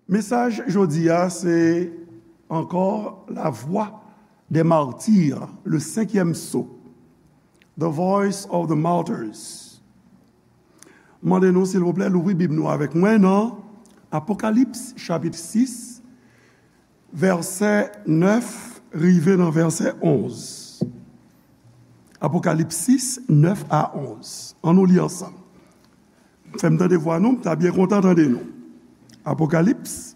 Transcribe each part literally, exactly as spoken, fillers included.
Mesaj jodi a se ankò la voix des martyrs, le cinquième sceau, the voice of the martyrs. Mande nou silvouplè louvri Bib nou avèk mwen nan Apokalips chapit sis, vèsè nèf rive nan vèsè onz. Apokalips sis, nèf a onz. Ann nou li ansanm. Fè m tande vwa nou, m ta byen kontan tande nou. Apokalips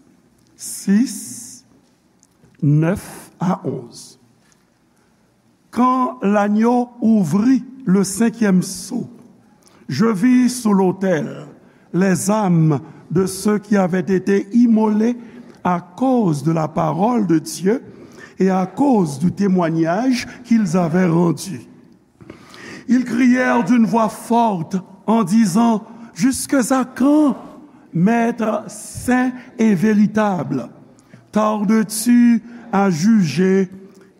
sis, nèf a onz. Quand l'agneau ouvrit le cinquième sceau, je vis sous l'autel les âmes de ceux qui avaient été immolés à cause de la parole de Dieu et à cause du témoignage qu'ils avaient rendu. Ils crièrent d'une voix forte en disant, jusqu'à quand, Maître saint et véritable, tardes-tu à juger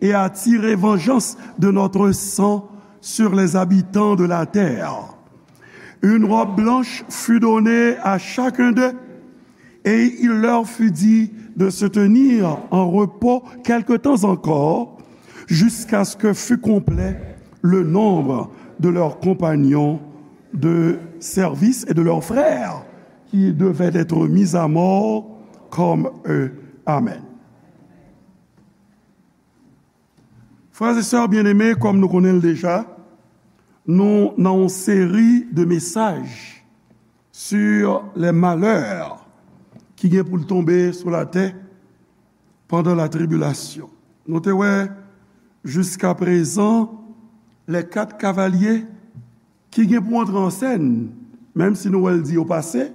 et à tirer vengeance de notre sang sur les habitants de la terre? Une robe blanche fut donnée à chacun d'eux, et il leur fut dit de se tenir en repos quelque temps encore, jusqu'à ce que fût complet le nombre de leurs compagnons de service et de leurs frères qui devaient être mis à mort comme eux. Amen. Frères et sœurs bien-aimés, kòm nou konnen l deja, nou nan yon seri de mesaj sur les malheurs ki gen pou l tonbe sou latè pandan la tribulation. Nou te wè jiska prezan les quatre cavaliers ki gen pou antre an sèn, menm si nou wè l di yo pase,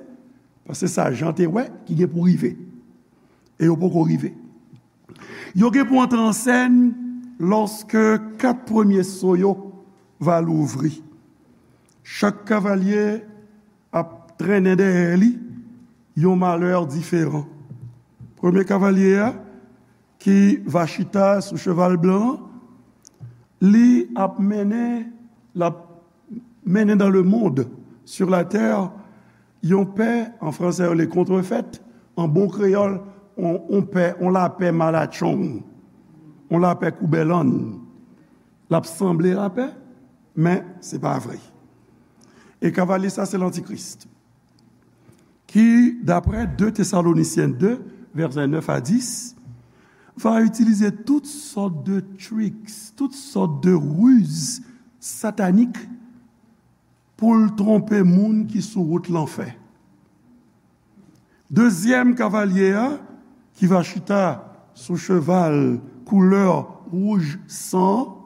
paske sa Jan te wè ki gen pou rive. E yo poko rive. Yo gen pou antre an sèn lòske kat premye so yo va louvri. Chak kavalye ap trennen dèyè li yon malè diferan. Premye kavalye a, ki va chita sou cheval blan an, li ap mennen, l ap mennen dans le monde, sur la terre, yon pè, an fransè yo le contrefait, an bon kreyòl, on, on pè, on lapè malatchong, on lapè koubèlann. L ap sanble lapè, men se pa vre. E kavalye sa se lantikris. Ki, daprè de Tesalonisyen de, vèsè nèf a dis, va itilize tout sòt de tricks, tout sòt de riz satanik pou l twonpe moun ki sou wout lanfè. Dezyèm kavalye a, ki va chita sou cheval koulè wouj san,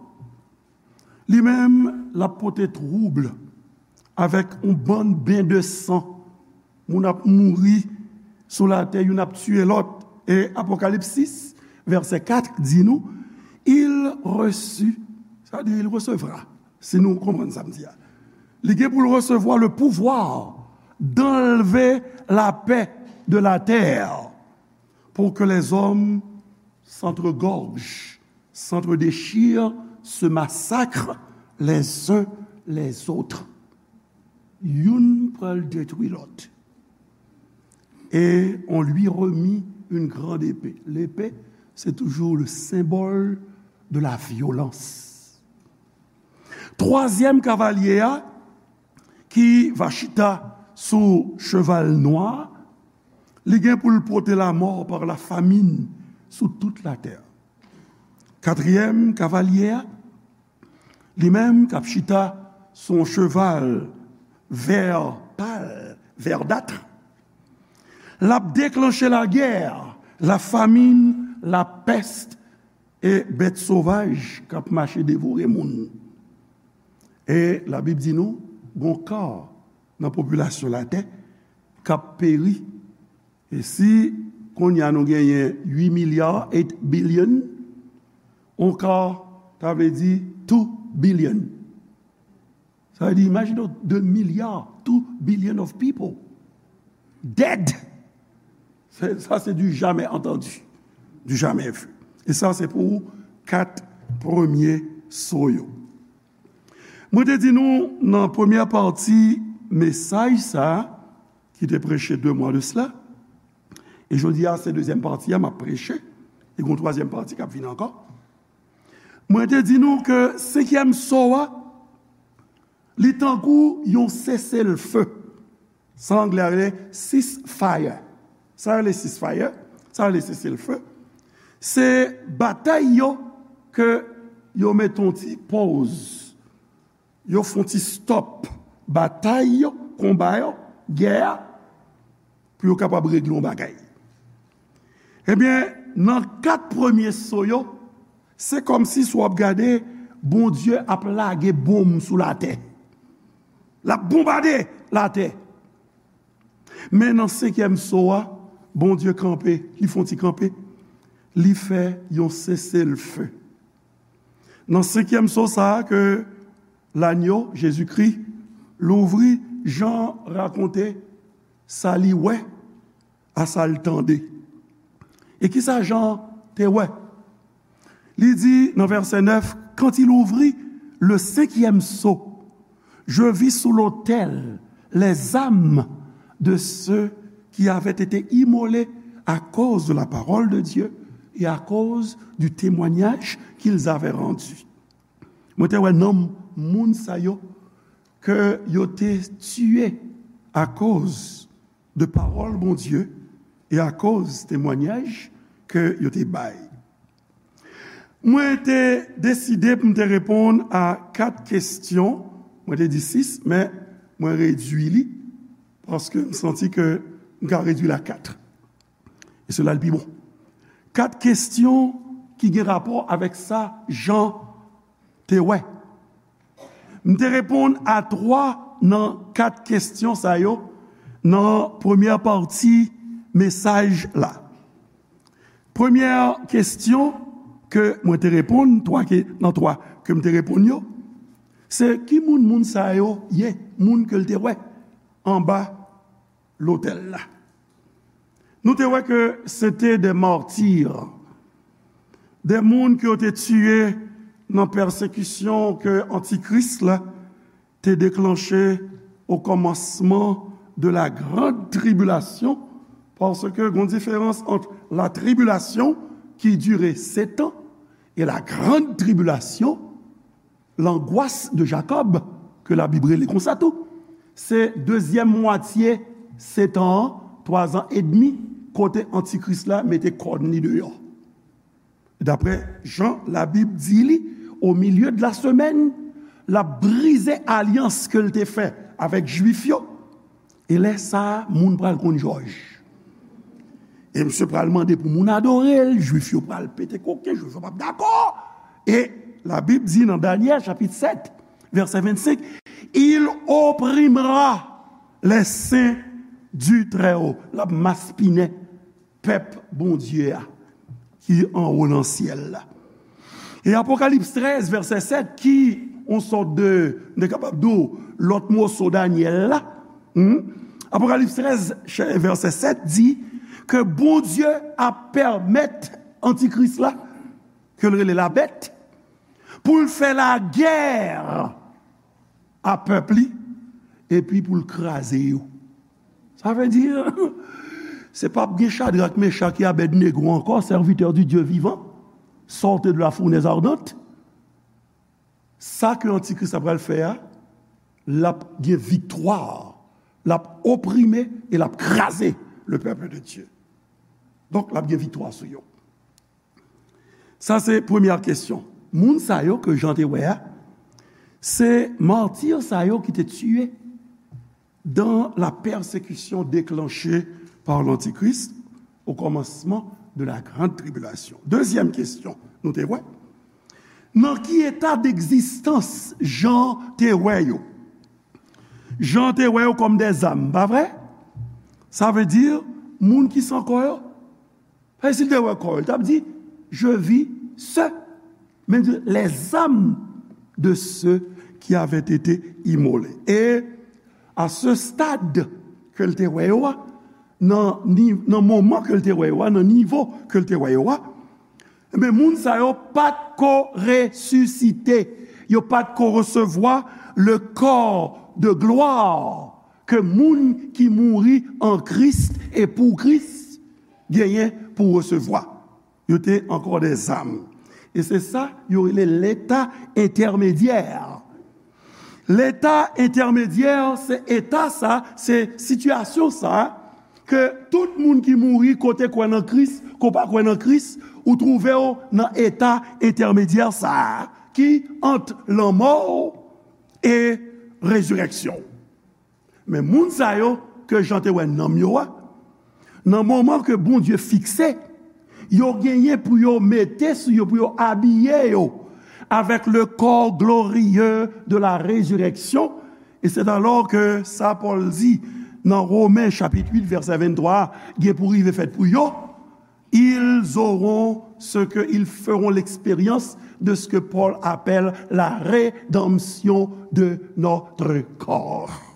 li menm, l ap pote twoub avèk yon bann ben de san. Moun ap mouri sou latè, youn ap tiye lòt. E Apokalips sis, vèsè kat di nou, il reçut, sa di il recevra, si nou konprann sa m di a. Li gen pou l resevwa le pouvoir d'enlever la paix de la terre pour que les hommes s'entregorgent, s'entre-déchirent, se massacrent les uns les autres. Youn pral detwi lòt. Et on lui remit une grande épée. Lepe, se toujou le symbole de la violence. Twazyèm kavalye a, ki va chita sou cheval nwa, li gen pou l pote la mort par la famine sou tout la terre. Katriyèm kavalye a, li menm k ap chita sou yon cheval vè pal, verdâtre, l ap deklanche lagè, la famine, la peste e bèt sovaj k ap mache devore moun. E Labib di nou, gon ka nan popilasyon latè k ap peri. E si kounye a nou genyen uit milya, eight billion, on ka, ta vle di two billion. Sa vle di, imajine w, de milya, two billion of people dead. Sa, se du jamais entendu, du jamais vu. E sa, se pou kat premye so yo. Mwen te di nou nan premyè pati mesaj sa a, ki te preche de mwa de sela, E jodi a, se dezyèm pati a, m ap preche. E gen yon twazyèm pati k ap vini ankò. Mwen te di nou ke senkyèm so a, li tankou yon seselfe. Sa anglè a rele ceasefire. Sa rele ceasefire, sa rele seselfe. Se batay yo ke yo mete yon ti pòz. Yo fè yon ti stop batay yo, konba yo, gè a, pou yo kapab regle yon bagay. Ebyen, nan kat premye so yo, se kòmsi si w ap gade, Bondye ap lage bonm sou latè. L ap bonbade latè. Men nan senkyèm so a, Bondye kanpe, li fè yon ti kanpe, li fè yon seselfe. Nan senkyèm so sa a ke lanyo, Jezikri, louvri, Jan rakonte sa li wè, a sa l tande. E kisa Jan te wè? Li di nan vèsè nèf, quand il ouvrit le cinquième sceau, je vis sous l'autel les âmes de ceux qui avaient été immolés à cause de la parole de Dieu et à cause du témoignage qu'ils avaient rendu. Mwen te wè nanm moun sa yo ke yo te tiye akoz de pawòl Bondye e akoz temwanyaj ke yo te bay. Mwen te deside pou m te reponn a kat kesyon. Mwen te di sis, men mwen redui li paske m santi ke m ka redui l a kat. E sela l pi bon. Kat kesyon ki gen rapò avèk sa Jan te wè. M te reponn a twa nan kat kesyon sa yo nan premyè pati mesaj la. Premyè kesyon ke mwen te reponn, twa ke, nan twa ke m te reponn yo, se ki moun moun sa yo ye, moun ke l te wè anba lotèl la. Nou te wè ke se te de martir, de moun ke yo te tiye nan pèsekisyon ke antikris la te deklanche o kòmansman de la grande tribulation, paske gon diferans ant la tribulation ki dire sèt an e la grande tribulation, l'angoisse de Jacob, ke Labib rele konsa tou. Se dezyèm mwatye sèt an an, twa zan edmi, kote antikris la mete kòn li deyò. Daprè jan Labib di li, au milieu de la semaine, l ap brize alyans ke l te fè avèk Jwif yo. E lè sa a, moun pral konn jòj. E misye pral mande pou moun adore l, Jwif yo pral pete koken, Jwif yo p ap dakò. E Labib di nan Danyèl chapit sèt, vèsè vennsenk, il opprimera les saints du Très-Haut. L ap maspinen pèp Bondye a ki anwo nan syèl la. E Apokalips trèz, vèsè sèt, ki yon sòt de, nou te kapab di w, lòt moso Danyèl la. Hmm? Apokalips trèz, chè-, vèsè sèt di ke Bondye ap pèmèt antikris la, ke l rele labèt, pou l fè lagè a pèp li, epi pou l kraze yo. Sa vle di, se p ap gen Chadrak, Mechak e Abèdnego ankò, serviteur du Dieu vivant, sortez de la fournaise ardente. Sa ke antikris la pral fè a, l ap gen viktwa, l ap oprime e l ap kraze le peuple de Dieu. Donk, l ap gen viktwa sou yo. Sa se premyè kesyon. Moun sa yo ke Jan te wè a, se mati sa yo ki te tiye dans la persécution déclenchée par l'Antichrist au commencement de la grande tribulation. Dezyèm kesyon, nou te wè, nan ki eta degzistans Jan te wè yo? Jan te wè yo kòm de zam, pa vre? Sa vle di, moun ki san kò yo, Paske si l te wè kò yo, l t ap di, je vis ceux, men di, les âmes de ceux qui avaient été immolés. E a se stad ke l te wè yo a, nan ni-, nan moman ke l te wè yo a, nan nivo ke l te wè yo a, ebyen, moun sa yo pa t ko resisite, yo pa t ko resevwa le corps de gloire ke moun ki mouri an Kris e pou Kris genyen pou resevwa. Yo te ankò dèzam. E se sa yo rele leta entèmedyè. Leta entèmedyè, se eta sa, se sitiyasyon sa, ke tout moun ki mouri, ke w te kwè nan Kris, ke w pa kwè nan Kris, ou twouve w nan eta entèmedyè sa a, ki ant lanmò w e rezirèksyon w. Men moun sa yo ke Jan te wè nanm yo a, nan moman ke Bondye fikse, yo genyen pou yo mete sou yo, pou yo abiye yo avec le corps glorieux de la résurrection. Et c'est alors que sa Pòl di nan Women chapit uit vèsè venntwa, gen pou rive fèt pou yo, ils auront ce que, ils feront l'expérience de ce que Paul appelle la rédemption de notre corps.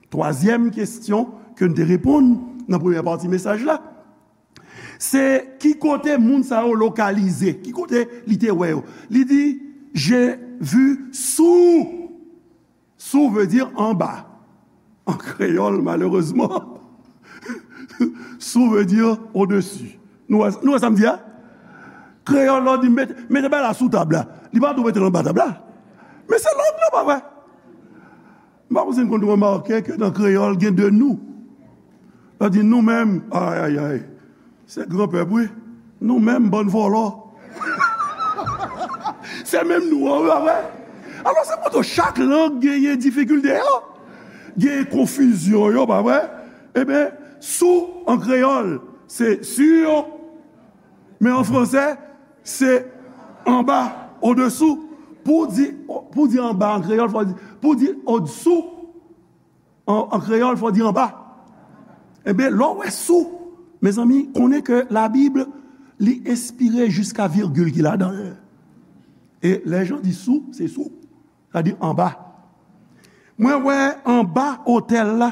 Twazyèm kesyon ke n te reponn nan premyè pati mesaj la, se ki kote moun sa yo lokalize, ki kote li te wè yo. Li di, j'ai vu sous. Sous veut dire en bas. An kreyòl, malerezman, sous veut dire au-dessus. Nou wè, nou wè sa m di a? Kreyòl la di, mete, mete bagay la sou tab la. Li pa tou mete l anba tab la. Men se lòd la, pa vre? M pa konn si n konn remake ke nan kreyòl gen de nou. Sa di nou menm, ay, ay, ay. Se gran pèp, wi. Nou menm, bann vòlò. Se menm nou an, wi, pa vre? Alò, se kote chak lang genyen difikilte yo, genyen konfizyon yo, pa vre? Ebyen, sous an kreyòl, se sur, men an fransè, se anba, au-dessous. Pou di, pou di anba an kreyòl, fò di, pou di au-dessous, an, an kreyòl, fò di anba. Ebyen, lè w wè sous, mezanmi, konnen ke Labib, li enspire jiska vigil ki ladan l. E lè Jan di sous, se sous. Sa di anba. Mwen wè anba otèl la.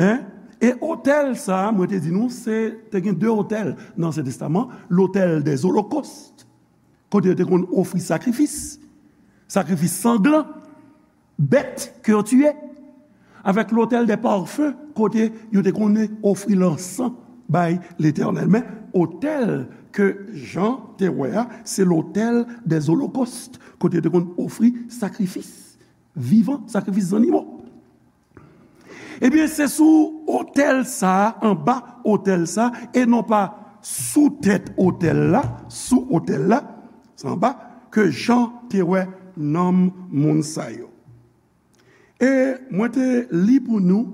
Hein? E otèl sa, mwen te di nou, se, te gen de otèl nan Ansyen Testaman, l'autel des holocaustes, kote yo te konn ofri sakrifis, sakrifis sanglan, bèt ke yo tiye, avèk l'autel des parfums, kote yo te konn ofri lansan bay Letènèl. Men otèl ke Jan te wè a, se l'autel des holocaustes, kote yo te konn ofri sakrifis vivan, sakrifis zannimo. Ebyen, se sou otèl sa a, anba otèl sa a, e non pa sou tèt otèl la, sou otèl la, se anba, ke Jan te wè nanm moun sa yo. E mwen te li pou nou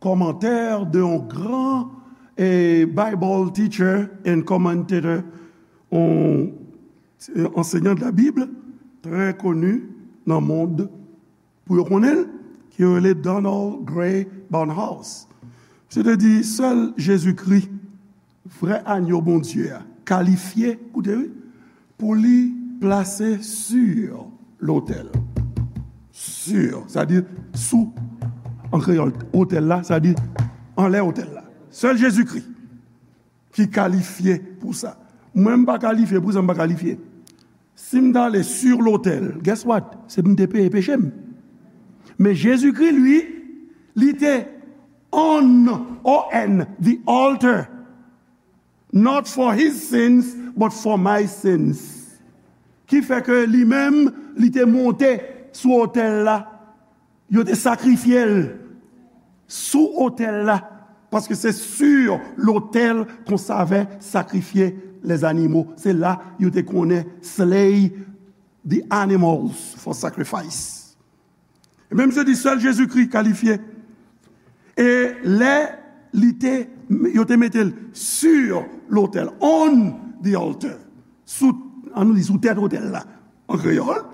kòmantè de yon gran, eh, Bible teacher and commentator, yon, eh, enseignant de la Bible, trè koni nan mond, pou yo konnen l, ki yo rele Donald Grey Barnhouse. Misye te di, sèl Jezikri, vrè anyo Bondye a, kalifye, koute wi, pou li plase sur lotèl. Sur, sa di sou, an kreyòl, otèl la, sa di anlè otèl la. Sèl Jezikri ki kalifye pou sa. Mwen, m pa kalifye, pou sa m pa kalifye. Si m t ale sur lotèl, guess what? Se pou m te peye peche m. Men Jezikri, li, li te on, O N, the altar, not for his sins, but for my sins. Ki fè ke li menm, li te monte sou otèl la. Yo te sakrifye l sou otèl la, paske se sur l'autel qu'on savait sacrifier les animaux. Se la yo te konnen slay the animals for sacrifice. E menm se di sèl Jezikri kalifye. E lè li te, yo te mete l sur lotèl, on the altar, sou, an nou di, sou tèt otèl la, an kreyòl,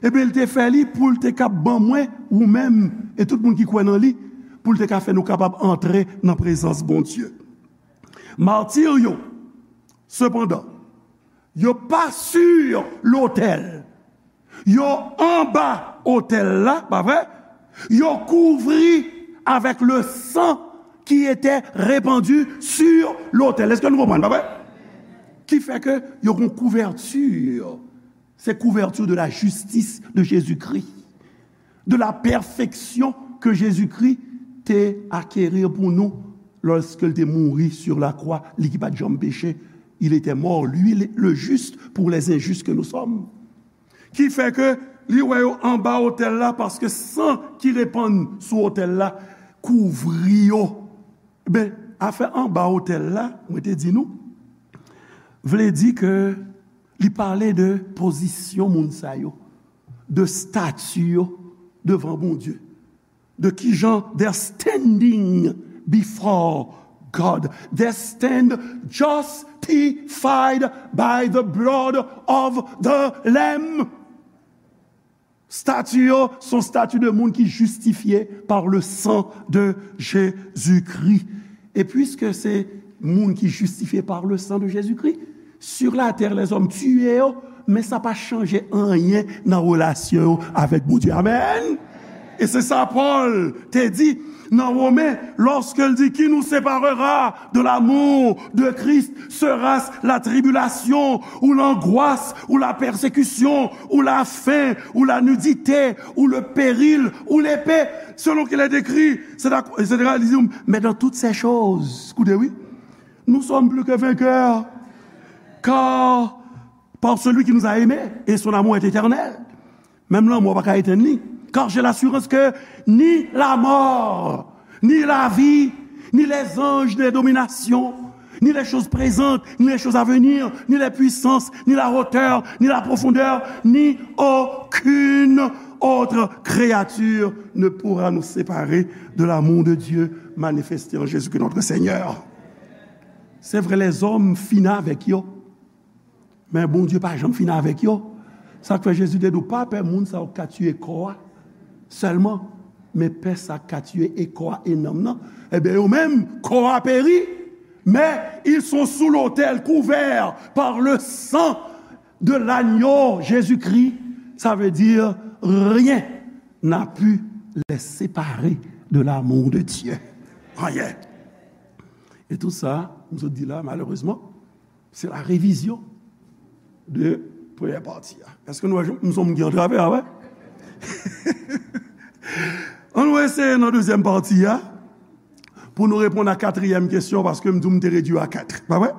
ebyen, li te fè li pou l te ka ban mwen, ou menm, e tout moun ki kwè nan li, pou l te ka fè nou kapab antre nan prezans Bondye. Matir yo, sepandan, yo pa sur lotèl. Yo anba otèl la, pa vre? Yo kouvri avec le sang qui était répandu sur l'autel. Èske nou konprann, pa vre? Ki fè ke yo gon kouvèti. Se kouvèti de la justice de Jésus-Christ, de la perfection que Jésus-Christ te acquérir pour nous Lorsque il te mouri sur la croix, li ki pa t janm peche, il était mort, lui le, le juste, pour les injustes que nous sommes. Ki fè ke li wè yo anba otèl la, paske san ki repann sou otèl la kouvri yo. Ben, afè anba otèl la, mwen te di nou, vle di ke li pale de pozisyon moun sa yo, de stati yo devan Bondye, de kijan they're standing before God. They stand justified by the blood of the Lamb. Stati yo se yon stati de moun ki jistifye par le sang de Jésus-Christ. E piske se moun ki jistifye par le sang de Jésus-Christ, sur la terre, les hommes tiye yo, men sa pa chanje anyen nan relasyon yo avèk Bondye. Amèn! E se sa Pòl te di nan Women, lorsque il dit, qui nous séparera de l'amour de Christ? Sera-ce la tribulation, ou l'angoisse, ou la persécution, ou la faim, ou la nudité, ou le péril, ou l'épée, selon qu'il est écrit, et cetera, et cetera. Li di, mais dans toutes ces choses, koute, wi, nous sommes plus que vainqueurs, car par celui qui nous a aimés, et son amour est éternel. Menm lanmò pa ka etenn li. Car j'ai l'assurance que ni la mort, ni la vie, ni les anges, ni les dominations, ni les choses présentes, ni les choses à venir, ni les puissances, ni la hauteur, ni la profondeur, ni aucune autre créature ne pourra nous séparer de l'amour de Dieu manifesté en Jésus-Christ notre Seigneur. Se vre, lèzòm fini avèk yo. Men Bondye pa janm fini avèk yo. Sa k fè Jezi te di w, pa pè moun sa yo k ka tiye kò a sèlman, men pè sa k ka tiye e kò a e nanm nan. Ebyen, yo menm, kò a peri, mais ils sont sous l'autel, couverts par le sang de l'agneau Jésus-Christ. Ça veut dire, rien n'a pu les séparer de l'amour de Dieu. Anyen. E tout sa, m sot di la, malerezman, se la revizyon de premyè pati a. Èske nou wè, m se moun ki antrave a, wè? Ann nou eseye nan dezyèm pati a, pou nou reponn a katriyèm kesyon, paske m di w m te redui a kat. Pa vre?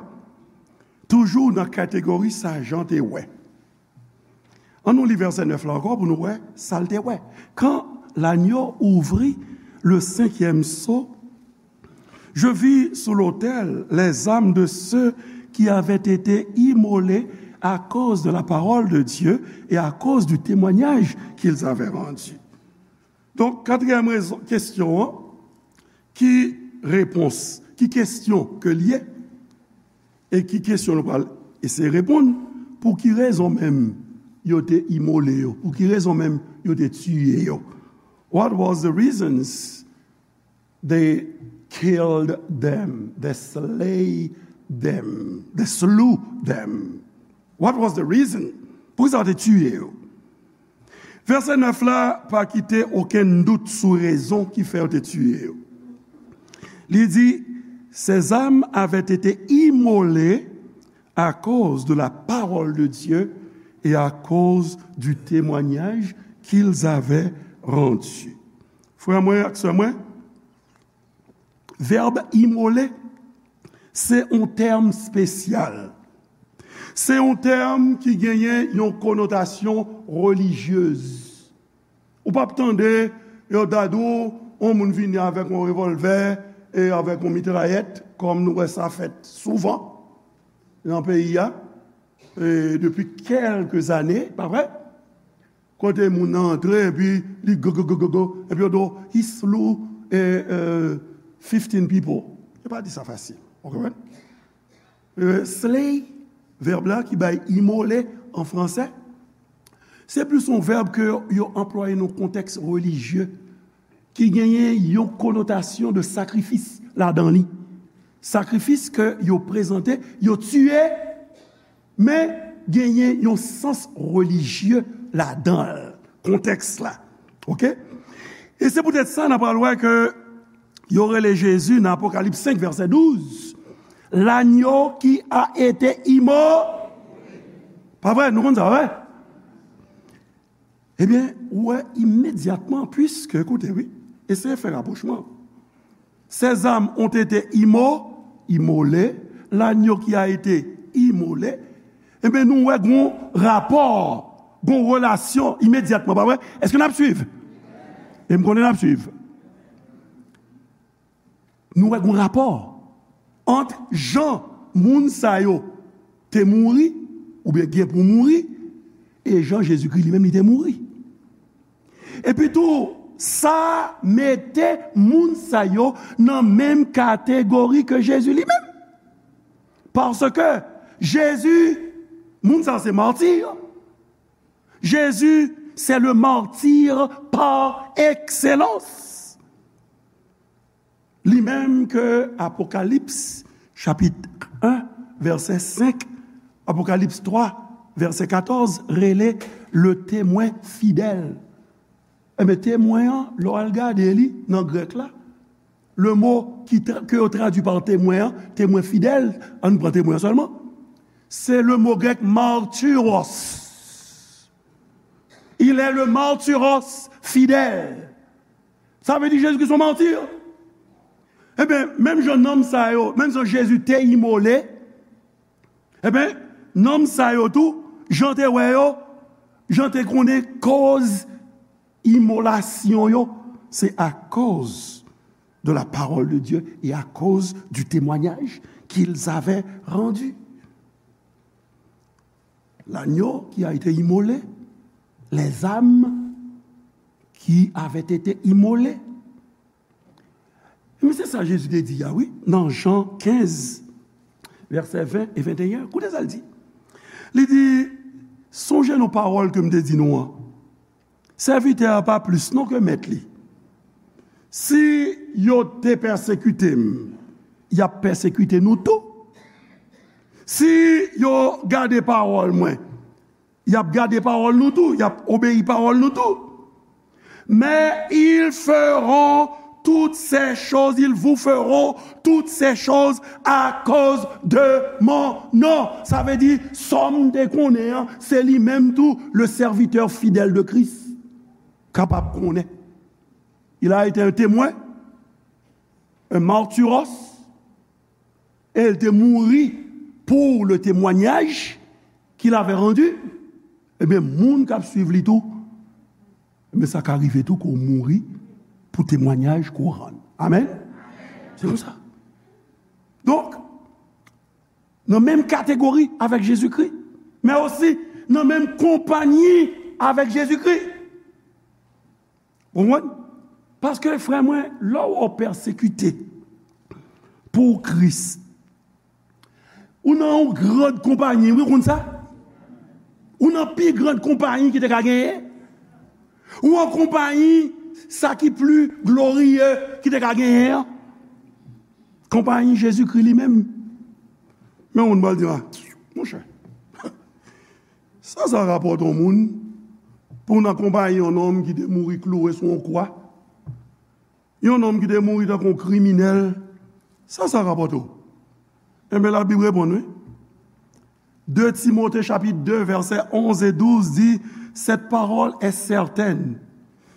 Toujou nan kategori sa Jan te wè. Ann nou li vèsè nèf la ankò pou nou wè sa l te wè. Quand l'agneau ouvrit le cinquième sceau, je vis sous l'autel les âmes de ceux qui avaient été immolés à cause de la parole de Dieu et à cause du témoignage qu'ils avaient rendu. Donk, katriyèm rezon, kesyon an, ki repons, ki kesyon ke l ye, e ki kesyon nou pral eseye reponn, pou ki rezon menm yo te imole yo, pou ki rezon menm yo te tiye yo? What was the reasons they killed them, they slay them, they slew them? What was the reason? Poukisa yo te tiye yo? Vèsè nèf la pa kite okenn dout sou rezon ki fè yo te tiye yo. Li di, ces âmes avaient été immolées à cause de la parole de Dieu et à cause du témoignage qu'ils avaient rendu. Frè mwen ak sè mwen, vèb imole, se yon tèm espesyal. Se yon tèm ki genyen yon konotasyon relijyez. Ou p ap tande yo ta di w, yon moun vini avèk yon revòlvè e avèk yon mitrayèt, kòm nou wè sa fèt souvan nan peyi a, e depi kèlke zane, pa vre? Kote moun nan antre, epi li go, go, go, go, go, epi yo di w, he slew, eh, eh, fifteen people. Yo pa di sa fasil. Ou konprann? Eh, slay, vèb la ki bay imole an fransè, se plis yon vèb ke yo anplwaye nan kontèks relijye, ki genyen yon konotasyon de sakrifis ladan li. Sakrifis ke yo prezante, yo tiye, men genyen yon sans relijye ladan l, kontèks la. Oke? E se poutèt sa, n a pral wè ke yo rele Jezi nan Apokalips senk, vèsè douz, l'agneau qui a été immolé. Pa vre? Nou konn sa, pa vre? Ebyen, ou wè imedyatman, piske, koute, wi, eseye fè rapwochman. Ces âmes ont été immo-, immolées, l'agneau qui a été immolé, ebyen, nou wè gon rapò, gon relasyon imedyatman, pa vre? Èske n ap swiv? E m konnen n ap swiv. Nou wè gon rapò ant jan moun sa yo te mouri, oubyen gen pou mouri, e jan Jezikri li menm li te mouri. Epi tou, sa mete moun sa yo nan menm kategori ke Jezi li menm. Paske Jezi, moun sa se mati. Jezi, c'est le martyr par excellence. Li menm ke Apokalips, chapit en, vèsè senk, Apokalips twa, vèsè katòz, rele le témoin fidèle. Ebyen, temwen an, lè w al gade li nan grèk la, le mo ki tra-, ke yo tradui pa temwen an, temwen fidèl, ann pran temwen an sèlman, se le mo grèk martyros. Il est le martyros fidèle. Sa vle di Jezikri se yon mati. Ebyen, menm jan nanm sa yo, menm jan Jezi te imole, ebyen, nanm sa yo tou, jan te wè yo, jan te konnen koz imolasyon yo, se akoz de la parole de Dieu et à cause du témoignage qu'ils avaient rendu. L'agneau qui a été immolé, les âmes qui avaient été immolées. Men se sa Jezi te di a, wi, nan Jan kenz, vèsè ven e venteyen. Koute sa l di. Li di, sonje nou pawòl ke m te di nou an. Sèvitè a pa plis non ke mèt li. Si yo te pèsekite m, y ap pèsekite nou tou. Si yo gade pawòl mwen, y ap gade pawòl nou tou, y ap obeyi pawòl nou tou. Mais ils feront toutes ces choses, ils vous feront toutes ces choses à cause de mon nom. Sa vle di, sa m te konnen an, se li menm tou, le serviteur fidèle de Christ, kapab konnen. Il a été un témoin, un martyros, et il te mouri pour le témoignage qu'il avait rendu. Ebyen, moun k ap swiv li tou, ebyen, sa ka rive tou ke w mouri pou temwayaj ke w rann. Amèn? Se konsa. Donk, nan menm kategori avèk Jezikri, men osi nan menm konpayi avèk Jezikri. Ou konprann? Paske, frè mwen, lè w pèsekite pou Kris, ou nan yon gran konpayi, wi, ou konn sa? Ou nan pi gran konpayi ki te ka genyen. Ou an konpayi sa ki pli gloriye ki te ka genyen an. Konpayi Jezikri li menm. Men yon moun pral di, a, monchè, sa sa rapòte yon moun pou w nan konpayi yon nonm ki te mouri kloure sou yon kwa? Yon nonm ki te mouri tankou yon kriminèl, sa sa rapòte w? Enben, Labib reponn, wi. De Timote chapit de, vèsè onz e douz di, cette parole est certaine.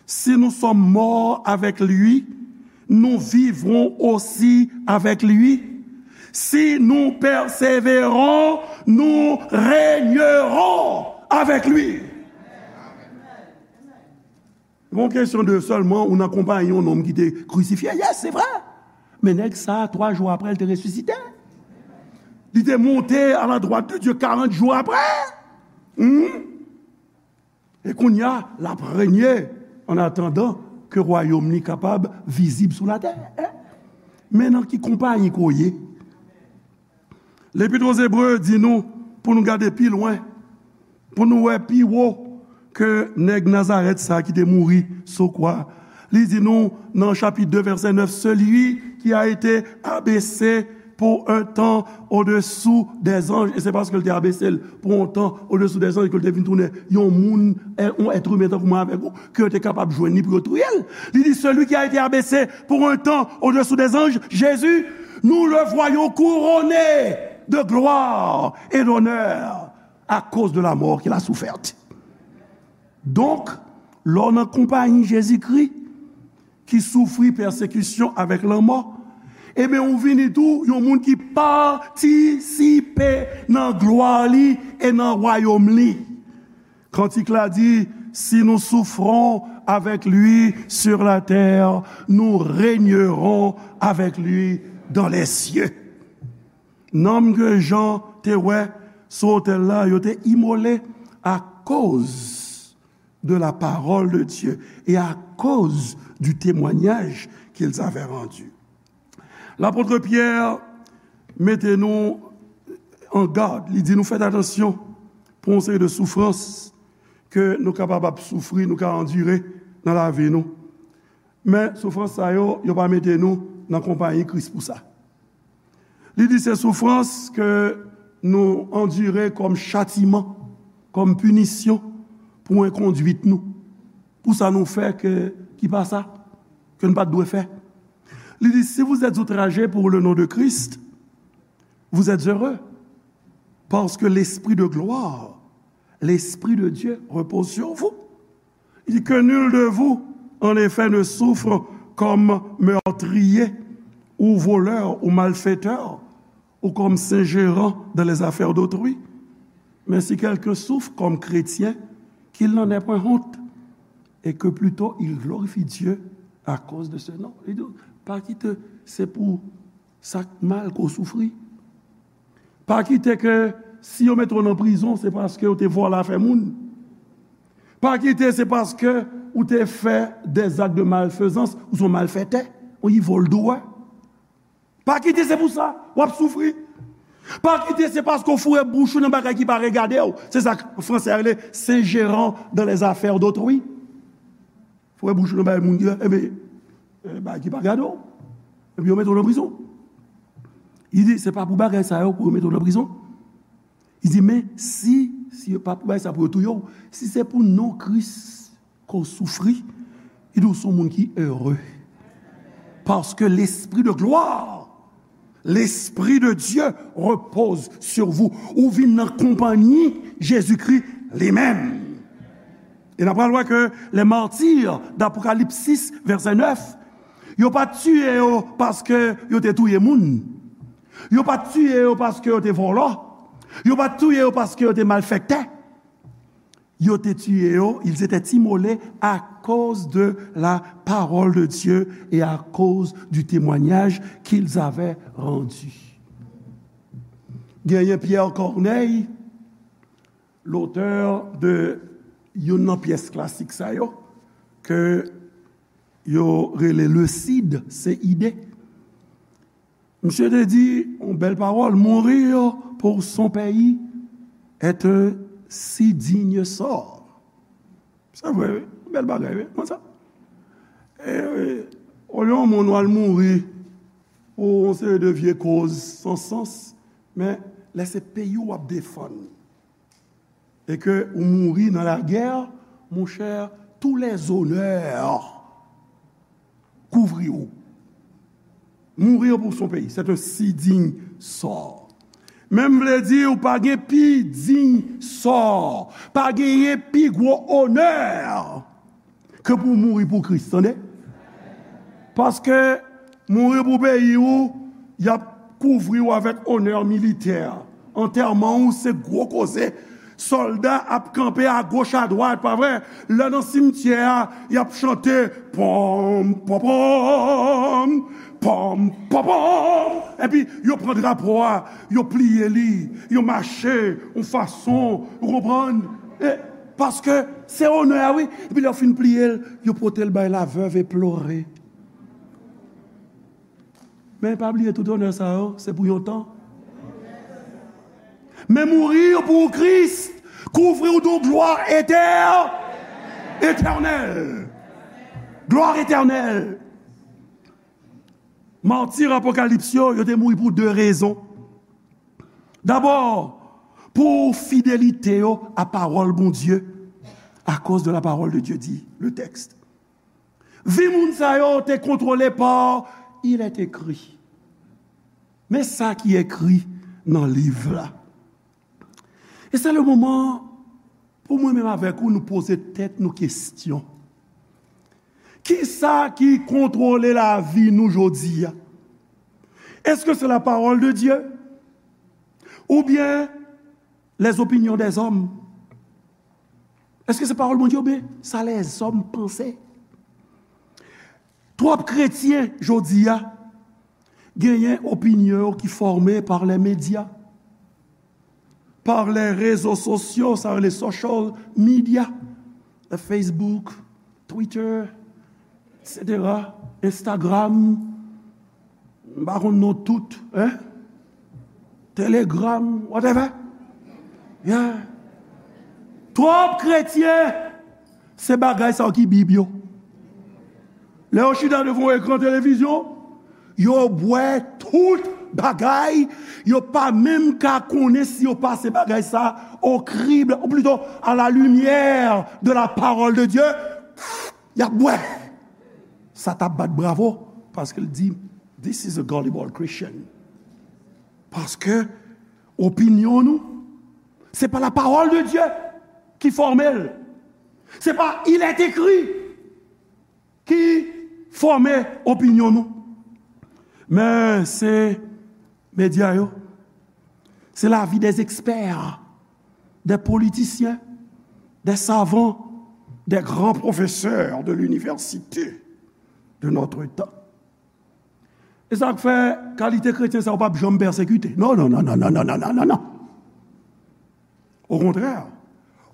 Si nous sommes morts avec lui, nous vivrons aussi avec lui. Si nous persévérons, nous régnerons avec lui. Gon kesyon de sèlman ou nan konpayi yon nonm ki te krisifye. Yes, se vre. Men nèg sa, twa jou apre, l te resisite. Li te monte à la droite de Dieu quarante jours après. Hmm? E kounye a, l ap renye en attendant ke wayòm li kapab vizib sou latè. Men nan ki konpayi ke w ye? Lepit Ozebre di nou pou nou gade pi lwen, pou nou wè pi wo ke nèg Nazarèt sa ki te mouri sou kwa. Li di nou nan chapit de, vèsè nèf, celui qui a été abaissé pour un temps au-dessous des anges, e se paske l te abese l pou yon tan au-dessous des anges ke l te vin tounen yon moun, yon èt imen tankou mwen avèk ou, ke yo te kapab jwenn li pou yo touye l. Li di, celui qui a été abaissé pour un temps au-dessous des anges, Jésus, nous le voyons couronné de gloire et d'honneur à cause de la mort qu'il a soufferte. Donk, lè w nan konpayi Jezikri ki soufri pèsekisyon avèk lanmò, Ebyen, ou vini tou yon moun ki patisipe nan glwa li e nan wayòm li. Kantik la di, si nous souffrons avec lui sur la terre, nous régnerons avec lui dans les cieux. Nanm ke Jan te wè sou otèl la, yo te imole akoz de la parole de Dieu et à cause du témoignage qu'ils avaient rendu. Lapot Pyè mete nou an gad, li di nou fèt atansyon pou yon seri de soufrans ke nou kapab ap soufri, nou ka andire nan lavi nou. Men soufrans sa yo, yo pa mete nou nan konpayi Kris pou sa. Li di se soufrans ke nou andire kòm chatiman, kòm pinisyon pou enkondwit nou, pou sa nou fè ke, ki pa sa, ke nou pa t dwe fè. Li di, si vous êtes outragés pour le nom de Christ, vous êtes heureux, parce que l'Esprit de gloire, l'Esprit de Dieu repose sur vous. Il dit, que nul de vous, en effet, ne souffre comme meurtrier ou voleur ou malfaiteur ou comme s'ingérant dans les affaires d'autrui. Mais si quelqu'un souffre comme chrétien, qu'il n'en ait point honte, et que plutôt il glorifie Dieu à cause de ce nom. Li di, pa kite se pou sa k mal ke w soufri. Pa kite ke si yo mete w nan prizon, se paske w te vòlè afè moun. Pa kite se paske ou te fè des actes de malfaisance, ou se yon malfètè, ou yi vòl dou a. Pa kite se pou sa w ap soufri. Pa kite se paske w foure bouch ou nan bagay ki pa regade w. Se sa k fransè a rele s'ingérant dans les affaires d'autrui. Foure bouch ou nan bagay moun ki, enben, bagay ki pa gade w. Epi yo mete w nan prizon. Li di, se pa pou bagay sa yo pou yo mete w nan prizon. Li di, men si, si yo pa pou bagay sa pou yo touye w, si se pou non Kris ke w soufri, li di w se yon moun ki ere. Paske lespri de glwa, lespri de Dye repoze sou vou. Ou vin nan konpanyi Jezikri li menm. E n ap pral wè ke les martyrs d'Apocalypse sis, vèsè nèf, yo pa t tiye yo paske yo te touye moun. Yo pa t tiye yo paske yo te vòlò. Yo pa t tiye yo paske yo te malfektè. Yo te tiye yo, ils étaient immolés à cause de la parole de Dieu et à cause du témoignage qu'ils avaient rendu. Genyen Pierre Corneille, lotè de youn nan pyès klasik sa yo, ke yo rele Le Cid, C I D. Misye te di yon bèl pawòl, mourir pour son pays est un si digne sort. Se vre, wi. Bèl bagay, wi. Konn sa. E, olye yon moun w al mouri pou yon seri de vye koz san sans, men lè se peyi w w ap defann, e ke ou mouri nan lagè, monchè, tous les honneurs kouvri w. Mourir pour son pays, c'est un si digne sort. Men m vle di, ou pa gen pi diy sò, pa genyen pi gwo onè ke pou w mouri pou Kris, tande? Paske mouri pou peyi w, y ap kouvri w avèk onè militè. Antèman w se gwo koze. Sòlda ap kanpe agoch adwat, pa vre? Lè nan simtyè a, y ap chante, pòm, pòm, pòm, pòm, pòm, pòm. Epi yo pran drapo a, yo pliye li, yo mache yon fason, ou konprann? E, paske se onè a, wi. Epi lè yo fin pliye l, yo pote l bay la veuve éplorée. Men pa bliye tout onè sa yo, se pou yon tan. Men mouri pou Kris kouvri w de yon glwa etè-, etènèl. Glwa etènèl. Mati Apokalips yo, yo te mouri pou de rezon. Dabò, pou fidelite yo a pawòl Bondye, à cause de la parole de Dieu, dit le texte. Vi moun sa yo te kontwole pa il est écrit. Men sa ki ekri nan liv la. E se le moman pou mwen menm avèk ou nou poze tèt nou kesyon. Kisa ki kontwole lavi nou jodi a? Est-ce que c'est la parole de Dieu? Ou byen les opinions des hommes? Èske se pawòl Bondye oubyen sa lèzòm panse? Twòp kretyen jodi a genyen opinyon yo ki fòme pa lè medya, pa lè rezo sosyo, sa rele social media, lè Facebook, Twitter, et cetera, Instagram, m pa konn non tout, hein? Telegram, whatever. Yeah. Twòp kretyen, se bagay sa yo ki Bib yo. Lè yo chita devan yon ekran televizyon, yo bwè tout bagay, yo pa menm ka konnen si yo pase bagay sa au crible, ou plutôt à la lumière de la parole de Dieu, y ap bwè. Sa t ap bat bravo, paske l di, "This is a gullible Christian." Paske opinyon nou, se pa la parole de Dieu ki fòme l. Se pa il est écrit ki fòme opinyon nou. Men se medya yo, se lavi des experts, des politiciens, des savants, des grands professeurs de l'université de notre temps. E sa k fè kalite kretyen sa yo p ap janm pèsekite. Non, non, non, non, non, non, non, non, non, non. Okontrè,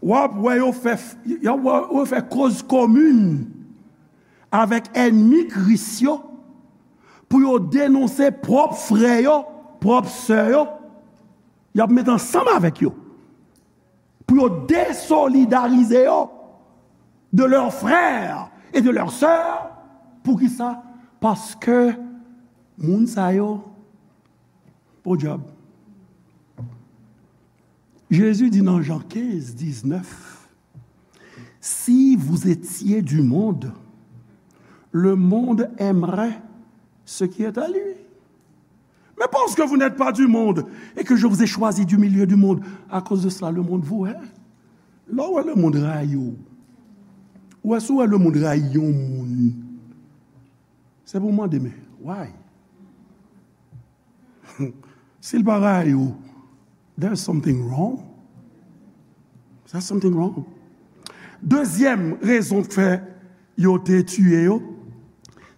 w ap wè yo fè, y ap wè yo fè koz komin avèk ènmi Kris yo pou yo denonse pwòp frè yo, pwòp sè yo. Y ap met ansanm avèk yo pou yo desolidarize yo de leurs frères et de leurs sœurs. Poukisa? Paske moun sa yo, podyab. Jezi di nan Jan kenz, diznèf, "Si vous étiez du monde, le monde aimerait ce qui est à lui. Mais parce que vous n'êtes pas du monde et que je vous ai choisi du milieu du monde, à cause de cela, le monde vous hait." Lè w wè lemonn rayi w, ou wè si w wè lemonn rayi yon moun, se pou w mande, "Men, why?" Si l pa rayi w, there's something wrong. There's something wrong. Dezyèm rezon k fè yo te tiye yo,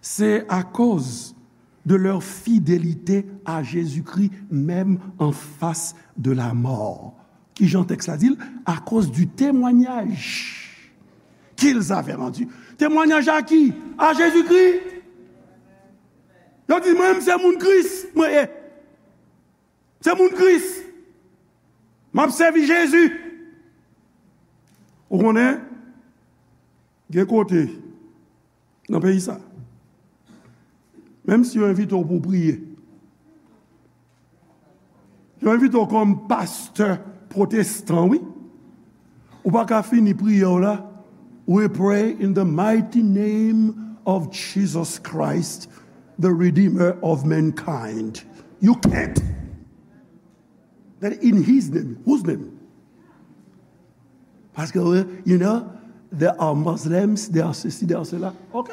se akoz de leur fidélité à Jésus-Christ, même en face de la mort. Ki jan tèks la di l? À cause du témoignage qu'ils avaient rendu. Temwanyaj a ki? A Jezikri. Yo di, "Mwen menm se moun Kris, mwen ye. Se moun Kris. M ap sèvi Jezi." Ou konnen, gen kote nan peyi sa, menm si yo envite w pou w priye, yo envite w kòm pastè pwotestan, wi, ou pa ka fini priyè w la, "We pray in the mighty name of Jesus Christ, the Redeemer of mankind." You can't. Then in his name, whose name? Paske, you know, there are Muslims, there are ceci, there are cela. Ok.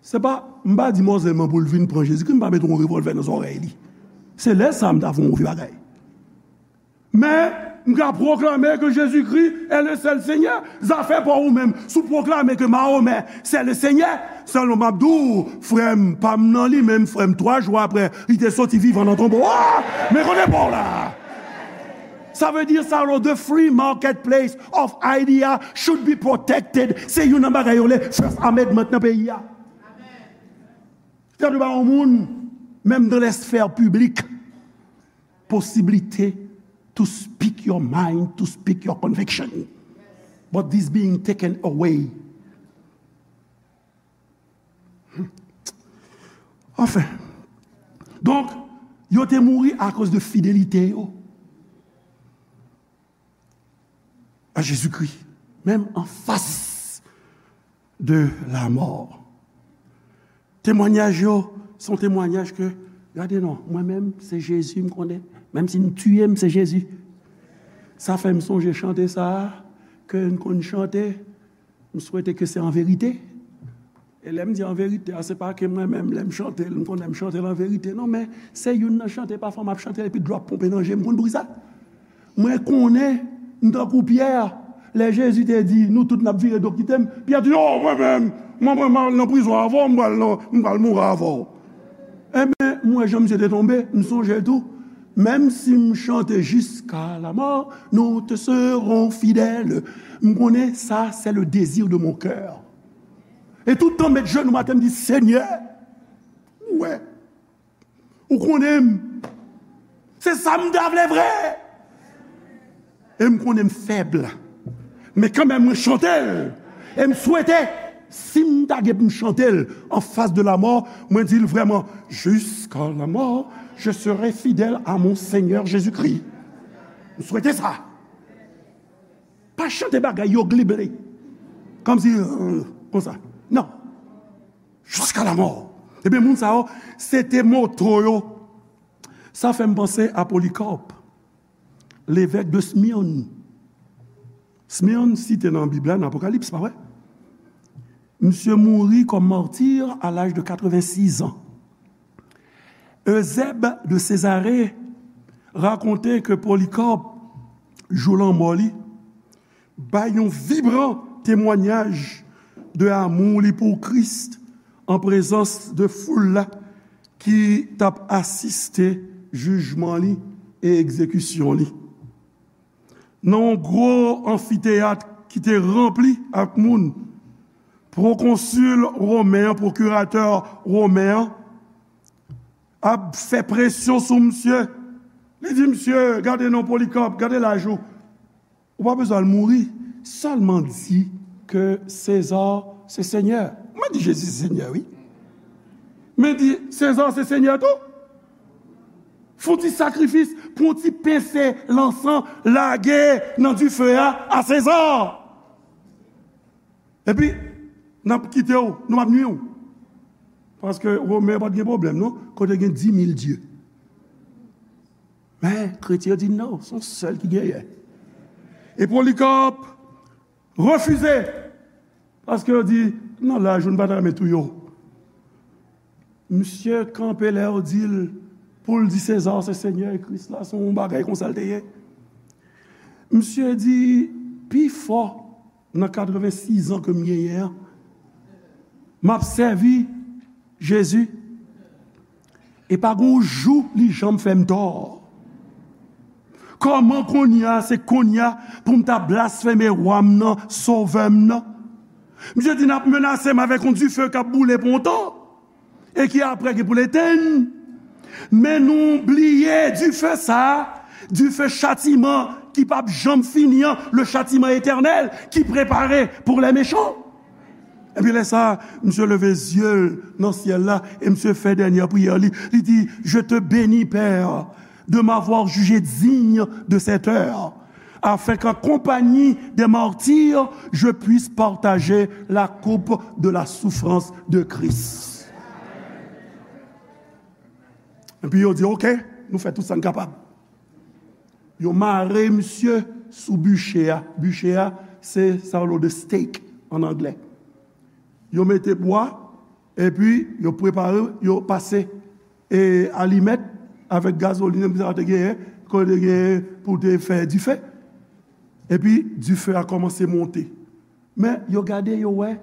Se pa, m pa di Muslim nan pou l vin pran Jezikri, m pa mete yon revòlvè nan zòrèy li. Se lè sa m ta fè yon move bagay. Men, m ka pwoklame ke Jezikri est le seul Seigneur. Zafè pa w ou menm. Si w pwoklame ke Mahomè c'est le Seigneur, sèlman m ap di w, frè m, pa m nan li menm, frè m, twa jou apre, li te soti vivan nan tonbo a. Men kote pa w la? Sa vle di sa, the free marketplace of idea should be protected. Se youn nan bagay yo le First Amendment nan peyi a. Fè de ba yon moun, menm dans les sphères publiques, posibilite to speak your mind, to speak your conviction. But this being taken away. Anfen. Donk, yo te mouri akoz de fidelite yo a Jezikri, menm an fas de la mort. Temwanyaj yo, se yon temwanyaj ke, gade non, mwen menm, se Jezi m konnen. Menm si n tiye m, se Jezi. Sa fè m sonje chante sa a, ke n konn chante, m swete ke se an verite. E lè m di an verite a, se pa ke mwen menm, lè m chante l, m konnen m chante l an verite. Non, men se youn nan chante, pafwa m ap chante l epi dlo ap ponpe nan je m. Konn bri sa? Mwen konnen, m tankou Pyè, lè Jezi te di, "Nou tout n ap vire do kite m," Pyè di, "O, mwen menm, mwen, mwen, m al nan prizon avè w, m pral nan, m pral mouri avè w." Enben, m wè jan misye te tonbe, m sonje l tou. "Même si m chante jusqu'à la mort, nous te serons fidèles." M konnen sa, c'est le désir de mon cœur. E tout tan m met jenou atè, m di, "Senyè, ou wè, ou konnen m. Se sa m ta vle vre." E m konnen m fèb. Men kanmenm, mwen chante l. E m swete, si m ta gen pou m chante l an fas de lamò, mwen di l vrèman, "Jusqu'à la mort, je serai fidèle à mon Seigneur Jésus-Christ." M swete sa. Pa chante bagay yo glible. Kòmsi, euh, konsa. Non. "Jusqu'à la mort." Ebyen, moun sa yo, se te moto yo. Sa fè m panse a Polycarpe, levèk de Smyrne. Smyrne site nan Bib la, nan Apokalips, pa vre? Misye mouri kòm martir à l'âge de quatre-vingt-six ans. Eusèbe de Césarée rakonte ke Polycarpe, jou lanmò li, bay yon vibran temwayaj de amou li pou Kris an prezans de foul la ki t ap asiste jijman li e egzekisyon li. Nan yon gwo anfiteyat ki te ranpli ak moun, pwokonsil women an, pwokiratè women an, ap fè presyon sou misye. Li di, "Misye, gade non, Polycarpe, gade laj ou. Ou pa bezwen al mouri. Sèlman di ke Seza se senyè." Mwen di Jezi se senyè, wi. Men di, "Seza se senyè tou." Fè yon ti sakrifis, pran yon ti pense lansan, lage nan dife a, a Seza. Epi, n ap kite w, nou p ap nwi w. Paske Women pa t gen pwoblèm, non, kote gen dis mil dye. Men, kretyen yo di, "Non, se yon sèl ki genyen." E Polycarpe refize, paske yo di, "Nan laj ou, nou pa ta renmen touye w." Misye kanpe lè yo di l pou l di Seza se senyè e Kris la, se yon bagay konsa l te ye. Misye di, "Pi fò nan katrevennsizan ke m genyen an, m ap sèvi Jezi. E pa gen yon jou li janm fè m tò. Kòman kounye a, se kounye a pou m ta blasfeme wa m nan, sovè m nan?" Misye di, "N ap menase m avèk yon dife k ap boule pou yon tan e ki apre gen pou l etenn. Men nou bliye dife sa a, dife chatiman ki p ap janm fini an, le châtiment éternel ki prepare pour les méchants." Epi lè sa a, misye leve zye l nan syèl la e misye fè dènye priyè li. Li di, "Je te bénis, Père, de m'avoir jugé digne de cette heure, afin qu'en compagnie des martyrs, je puisse partager la coupe de la souffrance de Christ." Epi yo di, "Oke, nou fè tout sa n kapab." Yo mare misye sou biche a. Biche a, se sa yo rele de stake an anglè. Yo mete bwa, epi yo prepare, yo pase e alimèt avèk gazolin, epi sa yo te genyen, ke yo te genyen pou te fè dife. Epi dife a kòmanse monte. Men yo gade, yo wè,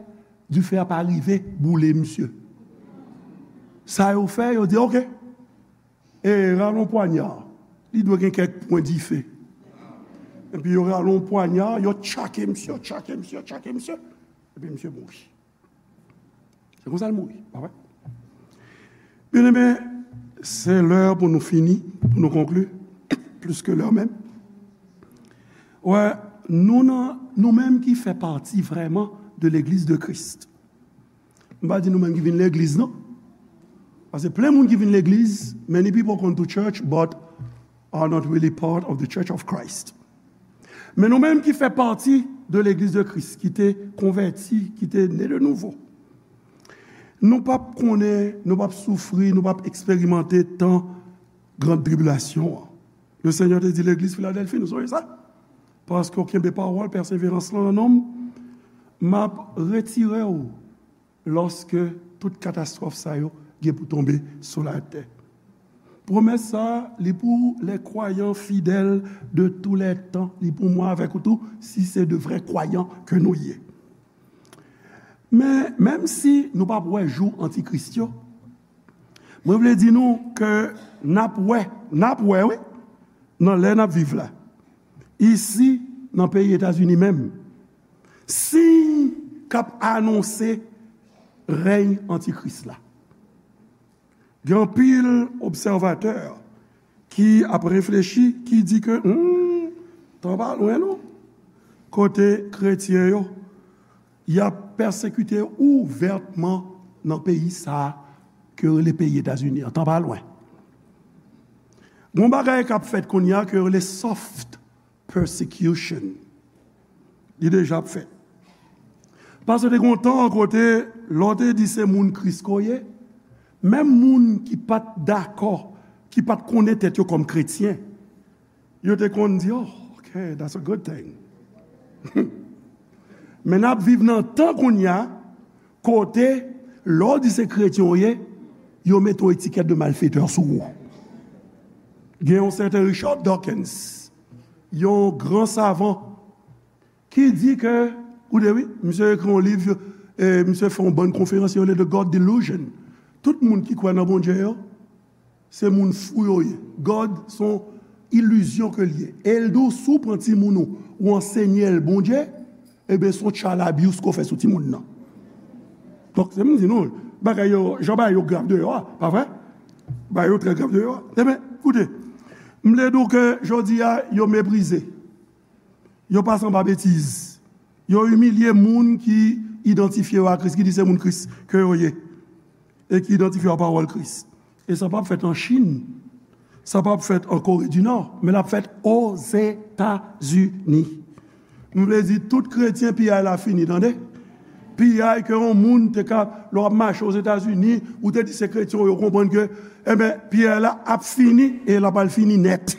dife a pa rive boule misye. Sa yo fè, yo di, "Oke, e rale yon pwanya. Li dwe gen kèk pwen dife." Epi yo rale yon pwanya, yo tchake misye, yo tchake misye, yo tchake misye. Epi misye mouri. Se konsa l mouri, pa vre? Byeneme, se lè pou nou fini, pou nou konkli, plis ke lè menm. Wè, nou nan, nou menm ki fè pati vrèman de Legliz de Kris. M pa di nou menm ki vin legliz, non. Paske plen moun ki vin legliz, many people come to church, but are not really part of the Church of Christ. Men nou menm ki fè pati de Legliz de Kris, ki te konvèti, ki te ne de nouvo, nou p ap konnen, nou p ap soufri, nou p ap eksperimante tan gran tribilasyon an. Le Senyè te di legliz Filadèlfi, nou sonje sa? Paske w kenbe pawòl pèseverans lan nan non m, m ap retire w lòske tout katastwòf sa yo gen pou tonbe sou latè. Pwomès sa a, li pou les croyants fidèles de tous les temps, li pou mwen avèk ou tou, si se de vrè kwayan ke nou ye. Men, menm si nou p ap wè jou antikris yo, mwen vle di nou ke n ap wè, n ap wè, wi, nan lè n ap viv la, isi, nan peyi Etazini menm, siy k ap anonse rèy antikris la. Gen anpil obsèvatè ki ap reflechi, ki di ke, hmm, tan pa lwen non, kote kretyen yo, y ap pèsekite ouvètman nan peyi sa a ke yo rele peyi Etazini an. Tan pa lwen. Gon bagay k ap fèt kounye a ke yo rele soft persecution. Li deja ap fèt. Paske te gon tan kote lè w te di se moun Kris ke w ye, menm moun ki pa t dakò, ki pa t konnen tèt yo kòm kretyen, yo te konn di, "Oh, okay, that's a good thing." Men n ap viv nan tan kounye a, kote, lè w di se kretyen w ye, yo mete yon etikèt de malfetè sou ou. Gen yon sèten Richard Dawkins, yon gran savan, ki di ke, koute wi, misye ekri yon liv, e misye fè yon bann konferans, yo rele The God Delusion. Tout moun ki kwè nan Bondye yo, se moun fou yo ye. God se yon ilizyon ke l ye. E l di w, si w pran timoun ou, ou ansenye l Bondye, ebyen, se yon child abuse ke w fè sou timoun nan. Donk, se m di nou, bagay yo, jan bagay yo grav deyò a, pa vre? Bagay yo trè grav deyò a. Ebyen, koute, m vle di w ke jodi a, yo meprize. Yo pase anba betiz. Yo imilye moun ki idantifye yo a Kris, ki di se moun Kris ke yo ye, e ki idantifye yo a pawòl Kris. E sa p ap fèt an Chin, sa p ap fèt an Kore di Nò, men l ap fèt Ozetazini. M vle di, tout kretyen, piyay la fini, tande. Piyay ke yon moun te ka, lè w ap mache Ozetazini, ou te di se kretyen, yo konprann ke, enben, piyay la ap fini, e l ap al fini nèt.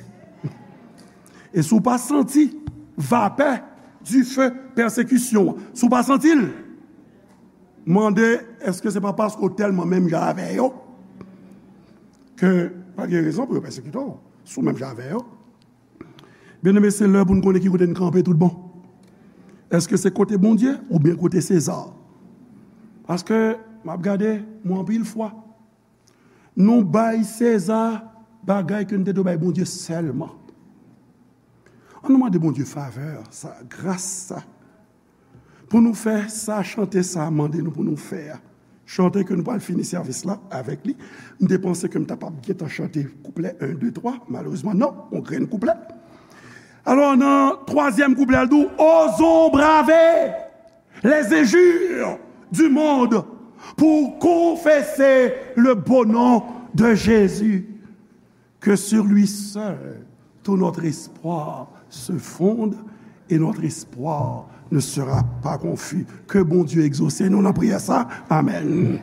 E si w pa santi vapè dife pèsekisyon an, si w pa santi l, mande, èske se pa paske w tèlman menm jan avè yo ke pa gen rezon pou yo pèsekite w, si w menm jan avè yo? Byeneme, se lè pou n konnen ki kote n kanpe tout bon. Èske se kote Bondye oubyen kote Seza? Paske, m ap gade, mwen anpil fwa, nou bay Seza bagay ke n te dwe bay Bondye sèlman. Ann nou mande Bondye favè sa, gras sa, pou nou fè sa, chante sa mande nou pou nou fè a. Chante ke nou pral fini sèvis la avèk li. M te panse ke m ta p ap gentan chante kouplè en, de, twa. Malerezman, non, yon grenn kouplè. Alò, nan twazyèm kouplè, l di w, osons braver les injures du monde pour confesser le beau nom de Jésus, que sur lui seul tout notre espoir se fonde et notre espoir ne sera pas confus. Ke Bondye egzose nou nan priyè sa. Amèn.